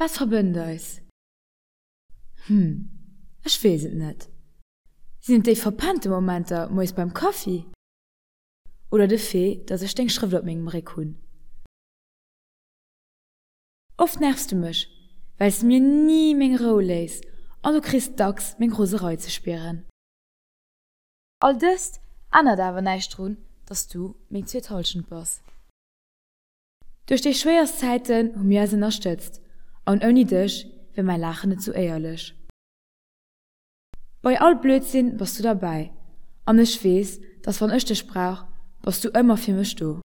Wat verbënnt eis? Hm, ech weess et net. Sinn et déi verpennte Momenter moies beim Kaffi? Oder de Fait, dass ech deng Schrëft op mengem Réck hunn? Oft nervs du mech, well s de mir ni meng Rou léiss an du kriss dacks meng Roserei ze spieren. All dëst ännert awer näischt drun, dass du meng zweet Hallschent bass. Duerch déi schwéierst Zäiten hu mir eis ënnerstëtzt an ouni dech wär mäi Laachen net sou éierlech. Bei all Blödsinn bass du derbäi an ech weess, dass wann ech dech brauch, bass du ëmmer fir mech do.